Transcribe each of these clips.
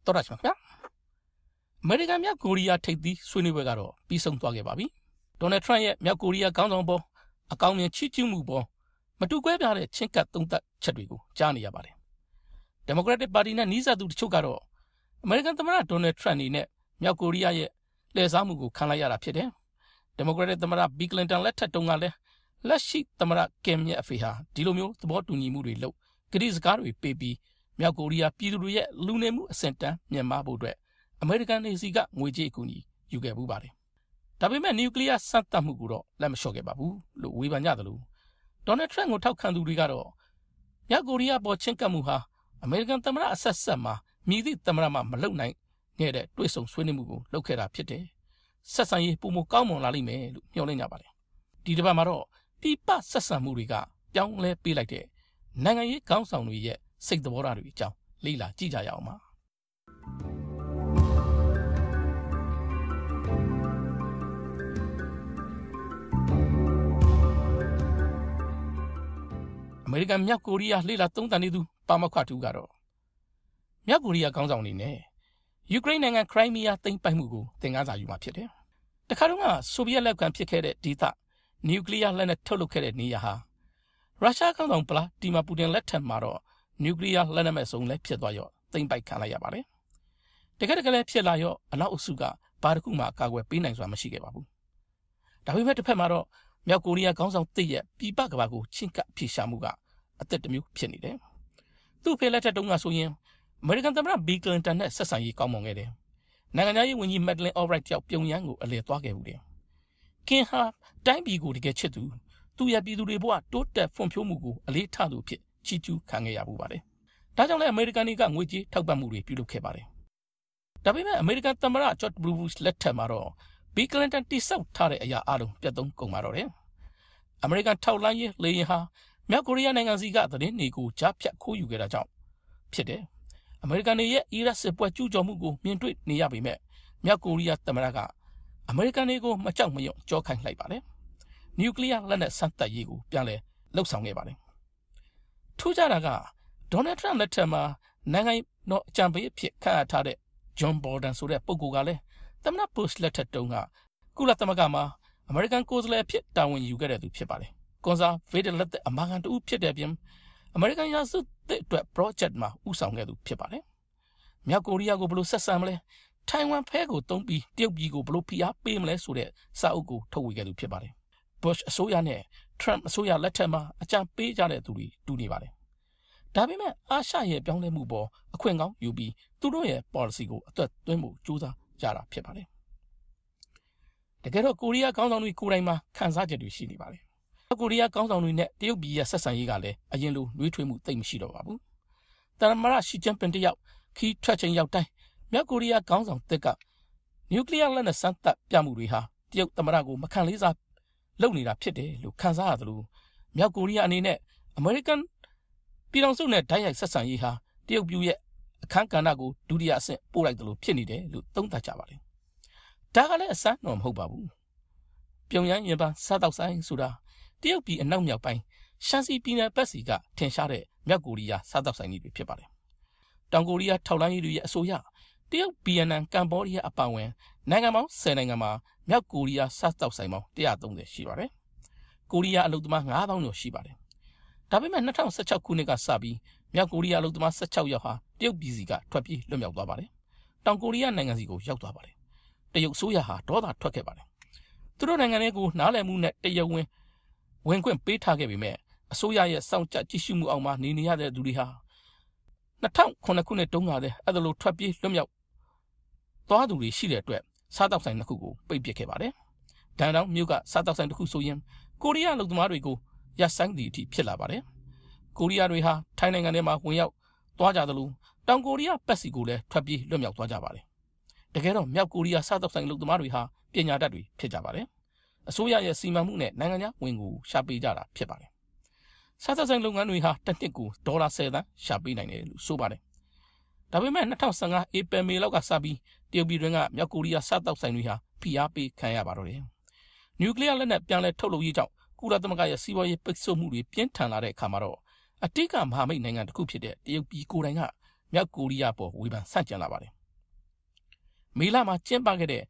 တော်ရရှိမှာအမေရိကန်မြောက်ကိုရီးယားထိပ်သီးဆွေးနွေးပွဲကတော့ပြီးဆုံးသွားခဲ့ပါပြီဒေါ်နယ်ထရန့်ရဲ့မြောက်ကိုရီးယားခေါင်းဆောင်ပေါ်အကောင်းမြင်ချီးကျူးမှုပေါ်မတူကွဲပြားတဲ့ချင်းကပ်သုံးသပ်ချက်တွေကိုကြားနေရပါတယ်ဒီမိုကရက်တစ်ပါတီနဲ့နီးစပ်သူတချို့ကတော့အမေရိကန်သမ္မတဒေါ်နယ်ထရန့်အနေနဲ့မြောက်ကိုရီးယားရဲ့လှည့်စားမှုကိုခံလိုက်ရတာဖြစ်တယ်ဒီမိုကရက်တစ်သမ္မတဘီကလင်တန်လက်ထက်တုန်းကလည်းလက်ရှိသမ္မတကင်ရဲ့အဖေဟာဒီလိုမျိုးသဘောတူညီမှုတွေလုပ်ကတိစကားတွေပေးပြီးမြောက်ကိုရီးယားပြည်သူတွေရဲ့လူနေမှုအဆင့်တန်းမြင့်မားဖို့အတွက်အမေရိကန်နေစီကငွေကြေးအကူအညီယူခဲ့မှုပါတယ်ဒါပေမဲ့နျူကလ িয়ার စမ်းသပ်မှုကိုတော့လက်မလျှော့ခဲ့ပါဘူးလို့ဝေဖန်ကြသလိုဒေါ်နယ်ထရန့်ကိုထောက်ခံသူတွေကတော့မြောက်ကိုရီးယားပေါ်ချင်းကပ်မှုဟာအမေရိကန်သမ္မတအဆက်ဆက်မှာမြည်သည့်သမ္မတမှမလုပ်နိုင်ခဲ့တဲ့တွေ့ဆုံဆွေးနွေးမှုကိုလုပ်ခဲ့တာဖြစ်တယ်ဆက်ဆံရေးပုံမကောင်းမွန်လာလိမ့်မယ်လို့မျှော်လင့်ကြပါတယ်ဒီတစ်ပတ်မှာတော့ပြပဆက်ဆံမှုတွေကပြောင်းလဲပေးလိုက်တဲ့နိုင်ငံရေးခေါင်းဆောင်တွေရဲ့စိတ်သဘောထားတွေအကြောင်းလေ့လာကြည့်ကြရအောင်ပါအမေရိကန်မြောက်ကိုရီးယားလေ့လာသုံးသပ်နေသူပါမောက္ခတူကတော့မြောက်ကိုရီးယားခေါင်းဆောင်အနေနဲ့ယူကရိန်းနိုင်ငံခရိုင်းမီးယားသိမ်းပိုက်မှုကိုသင်ခန်းစာယူမှာဖြစ်တယ်တခါတော့ကဆိုဗီယက်လက်ခံဖြစ်ခဲ့တဲ့ဒေသနျူကလ িয়ার လက်နက်ထုတ်လုပ်ခဲ့တဲ့နေရာဟာရုရှားခေါင်းဆောင်ဗလာဒီမာပူတင်လက်ထက်မှာတော့နျူကလ িয়ার လက်နက်မဲ့စုံလည်းဖြစ်သွားရောသိမ်းပိုက်ခံလိုက်ရပါတယ်တကယ်လည်းဖြစ်လာရောအနောက်အစုကဘာတစ်ခုမှကာကွယ်ပေးနိုင်စွာမရှိခဲ့ပါဘူးဒါပေမဲ့တစ်ဖက်မှာတော့မြောက်ကိုရီးယားခေါင်းဆောင်တစ်ရဲ့ပြည်ပကဘာကိုချင်းကပ်ဖြေရှာမှုကအသက်တစ်မျိုးဖြစ်နေတယ်သူ့ဖေလက်ထက်တုန်းကဆိုရင်အမေရိကန်သမ္မတဘီကလင်တန်နဲ့ဆက်ဆံရေးကောင်းမွန်ခဲ့တယ်နိုင်ငံသားရေးဝန်ကြီးမက်ဒလင်အော်ဘရိုက်တယောက်ပြုံရန်ကိုအလည်သွားခဲ့ဘူးတယ်ကင်ဟာတိုင်းပြည်ကိုတကယ်ချစ်သူရဲ့ပြည်သူတွေဘဝတိုးတက်ဖွံ့ဖြိုးမှုကိုအလေးထားသူဖြစ်ချီးကျူးခံခဲ့ရဘူးပါတယ်ဒါကြောင့်လည်းအမေရိကန်တွေကငွေကြေးထောက်ပံ့မှုတွေပြုလုပ်ခဲ့ပါတယ်ဒါပေမဲ့အမေရိကန်သမ္မတဂျော့ဂျ် ဘူရှ်လက်ထက်မှာတော့ဘီကလင်တန်တိဆောက်ထားတဲ့အရာအလုံးပြတ်သုံးကုန်ပါတော့တယ်အမေရိကန်ထောက်လှမ်းရေးလေယာဉ်ဟာမြောက်ကိုရီးယားနိုင်ငံစီကသတင်းတွေကိုကြားဖြတ်ခိုးယူခဲ့တာကြောင့်ဖြစ်တယ်အမေရိကန်ရဲ့အီရတ်စစ်ပွဲကျူးကျော်မှုကိုမြင်တွေ့နေရပေမဲ့မြောက်ကိုရီးယားသမ္မတကအမေရိကန်တွေကိုမကြောက်မရွံ့ကြောခိုင်းလိုက်ပါတယ်နျူကလ িয়ার လက်နက်စမ်းသပ်ရေးကိုပြန်လည်လှုပ်ဆောင်ခဲ့ပါတယ်ထူးခြားတာကဒေါ်နယ်ထရန့်လက်ထက်မှာနိုင်ငံတော်အကြံပေးအဖြစ်ခန့်အပ်ထားတဲ့ဂျွန်ဘော်ဒန်ဆိုတဲ့ပုဂ္ဂိုလ်ကလည်းသမ္မတဘုရှ်လက်ထက်တုန်းကကုလသမဂ္ဂမှာအမေရိကန်ကိုယ်စားလှယ်အဖြစ်တာဝန်ယူခဲ့တဲ့သူဖြစ်ပါတယ်ကွန်ဆာဗေးဒလက်တဲ့အမာခံတူဖြစ်တဲ့ပြင်အမေရိကန်ရာစုတဲ့အတွက် project မှာဥဆောင်ခဲ့သူဖြစ်ပါတယ်မြောက်ကိုရီးယားကိုဘယ်လိုဆက်ဆံမလဲထိုင်ဝမ်ဖဲကိုတုံးပြီးတရုတ်ပြည်ကိုဘယ်လိုဖိအားပေးမလဲဆိုတဲ့စာအုပ်ကိုထုတ်ဝေခဲ့သူဖြစ်ပါတယ်ဘုရှ်အစိုးရနဲ့ထရန့်အစိုးရလက်ထက်မှာအကြံပေးကြတဲ့သူတွေတူနေပါတယ်ဒါပေမဲ့အာရှရဲ့ပြောင်းလဲမှုပေါ်အခွင့်ကောင်းယူပြီးသူတို့ရဲ့ policy ကိုအသက်သွင်းဖို့ကြိုးစားကြတာဖြစ်ပါတယ်တကယ်တော့ကိုရီးယားခေါင်းဆောင်တွေကိုယ်တိုင်မှာခံစားချက်တွေရှိနေပါတယ်ကိုရီးယားခေါင်းဆောင်တွေနဲ့တရုတ်ပြည်ရဲ့ဆက်ဆံရေးကလည်းအရင်လိုနှွေးထွေးမှုသိပ်မရှိတော့ပါဘူး။သမ္မတရှီကျင်းပင်တယောက်ခီးထွက်ချိန်ရောက်တိုင်းမြောက်ကိုရီးယားခေါင်းဆောင်သစ်ကနျူကလ িয়ার လက်နက်စမ်းသပ်ပြမှုတွေဟာတရုတ်သမ္မတကိုမခံလေးစားလုပ်နေတာဖြစ်တယ်လို့ခံစားရသလိုမြောက်ကိုရီးယားအနေနဲ့အမေရိကန်ပြည်ထောင်စုနဲ့ဓာတ်ရိုက်ဆက်ဆံရေးဟာတရုတ်ပြည်ရဲ့အခန်းကဏ္ဍကိုဒုတိယအဆင့်ပို့လိုက်သလိုဖြစ်နေတယ်လို့သုံးသပ်ကြပါတယ်။ဒါကလည်းအဆန်းတော့မဟုတ်ပါဘူး။ပြုံရန်ရင်ပန်းစားတောက်ဆိုင်ဆိုတာတရုတ်ပြည်အနောက်မြောက်ပိုင်းရှမ်းစီပြည်နယ်ဘက်စီကထင်ရှားတဲ့မြောက်ကိုရီးယားစားတောက်ဆိုင်တွေဖြစ်ပါတယ်။တောင်ကိုရီးယားထောက်လှမ်းရေးတွေရဲ့အဆိုအရတရုတ်ဗီယက်နမ်ကမ္ဘောဒီးယားအပါအဝင်နိုင်ငံပေါင်း10နိုင်ငံမှာမြောက်ကိုရီးယားစားတောက်ဆိုင်ပေါင်း130ရှိပါတယ်။ကိုရီးယားအလုပ်သမား9000ကျော်ရှိပါတယ်။ဒါပေမဲ့2016ခုနှစ်ကစပြီးမြောက်ကိုရီးယားအလုပ်သမား16ယောက်ဟာတရုတ်ပြည်စီကထွက်ပြေးလွတ်မြောက်သွားပါတယ်။တောင်ကိုရီးယားနိုင်ငံစီကိုရောက်သွားပါတယ်။တရုတ်အစိုးရဟာဒေါသထွက်ခဲ့ပါတယ်။သူတို့နိုင်ငံတွေကိုနားလည်မှုနဲ့တရားဝင်ခွင့်ပေးထားခဲ့ပေမဲ့အစိုးရရဲ့စောင့်ကြကြည့်ရှုမှုအောက်မှာနေရတဲ့သူတွေဟာ2009ခုနှစ်တုန်းကလည်းအဲ့ဒါလိုထွက်ပြေးလွတ်မြောက်သွားသူတွေရှိတဲ့အတွက်စားတောက်ဆိုင်တစ်ခုကိုပိတ်ပစ်ခဲ့ပါတယ်။ဒန်တောင်မြို့ကစားတောက်ဆိုင်တစ်ခုဆိုရင်ကိုရီးယားလူသမားတွေကိုရပ်ဆိုင်းသည့်အထိဖြစ်လာပါတယ်။ကိုရီးယားတွေဟာထိုင်းနိုင်ငံထဲမှာဝင်ရောက်သွားကြသလိုတောင်ကိုရီးယားပတ်စီကိုလည်းထွက်ပြေးလွတ်မြောက်သွားကြပါတယ်။တကယ်တော့မြောက်ကိုရီးယားစားတောက်ဆိုင်လူသမားတွေဟာပညာတတ်တွေဖြစ်ကြပါတယ်။အစိုးရရဲ့စီမံမှုနဲ့နိုင်ငံခြားဝင်ငွေရှာပေးကြတာဖြစ်ပါတယ်။စားတောက်ဆိုင်လုပ်ငန်းတွေဟာတစ်နှစ်ကိုဒေါ်လာ10သန်းရှာပေးနိုင်တယ်လို့ဆိုပါတယ်။ဒါပေမဲ့2015ဧပြီမေလောက်ကစပြီးတရုတ်ပြည်တွင်းကမြောက်ကိုရီးယားစားတောက်ဆိုင်တွေဟာဖိအားပေးခံရပါတော့တယ်။နျူကလ িয়ার လက်နက်ပြန်လည်ထုတ်လုပ်ရေးကြောင့်ကုလသမဂ္ဂရဲ့စီးပွားရေးပိတ်ဆို့မှုတွေပြင်းထန်လာတဲ့အခါမှာတော့အတိတ်ကမဟာမိတ်နိုင်ငံတစ်ခုဖြစ်တဲ့တရုတ်ပြည်ကိုယ်တိုင်ကမြောက်ကိုရီးယားပေါ်ဝေဖန်ဆန့်ကျင်လာပါတယ် မေလမှာကျင်းပခဲ့တဲ့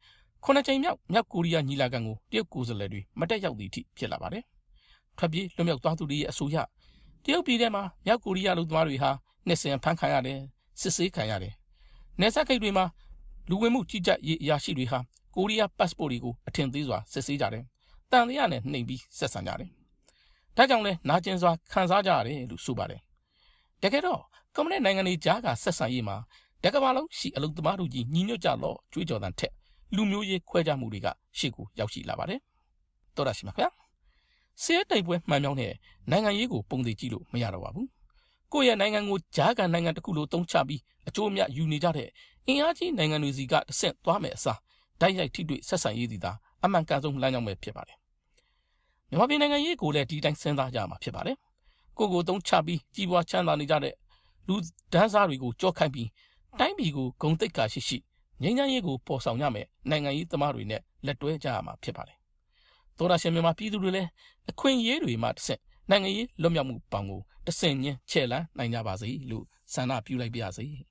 9ကြိမ်မြောက်မြောက်ကိုရီးယားညီလာခံကိုတရုတ်ကိုယ်စားလှယ်တွေမတက်ရောက်သည့်အထိဖြစ်လာပါတယ်။ထွက်ပြေးလွတ်မြောက်သွားသူတွေရဲ့အဆိုအရတရုတ်ပြည်ထဲမှာမြောက်ကိုရီးယားလူသမားတွေဟာနှစ်စဉ်ဖမ်းခံရတယ်စစ်ဆေးခံရတယ်။နယ်စပ်ဂိတ်တွေမှာလူဝင်မှုကြီးကြပ်ရေးအရာရှိတွေဟာကိုရီးယား passport တွေကိုအထင်သေးစွာစစ်ဆေးကြတယ်။တန်တရားနဲ့နှိမ်ပြီးဆက်ဆံကြတယ်။ဒါကြောင့်လဲနာကျင်စွာခံစားကြရတယ်လို့ဆိုပါတယ်။တကယ်တော့ကွန်မြူနစ်နိုင်ငံတွေကြားကဆက်ဆံရေးမှာတကမ္ဘာလုံးရှိအလုပ်သမားတို့ကြီးညီညွတ်ကြလို့ကြွေးကြော်တဲ့ထက်လူမျိုးရေးခွဲခြားမှုတွေကရှေ့ကိုရောက်ရှိလာပါတယ်။တော်ရရှိမှာခင်ဗျာ။ဆေးတိုက်ပွဲမှန်မြောင်းတဲ့နိုင်ငံရေးကိုပုံသေးကြည့်လို့မရတော့ပါဘူး။ကိုယ့်ရဲ့နိုင်ငံကိုကြားကန်နိုင်ငံတစ်ခုလိုတုံးချပြီးအကျိုးအမြတ်ယူနေကြတဲ့အင်အားကြီးနိုင်ငံတွေစီကတဆင့်သွားမယ်အစားဓာတ်ရိုက်ထိတွေ့ဆက်ဆံရေးသည်သာအမှန်ကန်ဆုံးလမ်းကြောင်းပဲဖြစ်ပါတယ်။မြန်မာပြည်နိုင်ငံရေးကိုလည်းဒီတိုင်းစဉ်းစားကြမှာဖြစ်ပါတယ်။ကိုတုံးချပြီးကြီးပွားချမ်းသာနေကြတဲ့လူဒန်းစားတွေကိုကြောက်ခိုင်းပြီးတိုင်းပြည်ကိုဂုဏ်သိက္ခာရှိငြိမ်းချမ်းရေးကိုပေါ်ဆောင်ရမယ်နိုင်ငံရေးသမားတွေနဲ့လက်တွဲကြရမှာဖြစ်ပါတယ်။သောရရှင်မြန်မာပြည်သူတွေလည်းအခွင့်အရေးတွေမှတစ်ဆင့်နိုင်ငံရေးလွတ်မြောက်မှုပေါင်းကိုတဆင့်ချင်းချဲ့လန်းနိုင်ကြပါစေလို့ဆန္ဒပြုလိုက်ပါရစေ။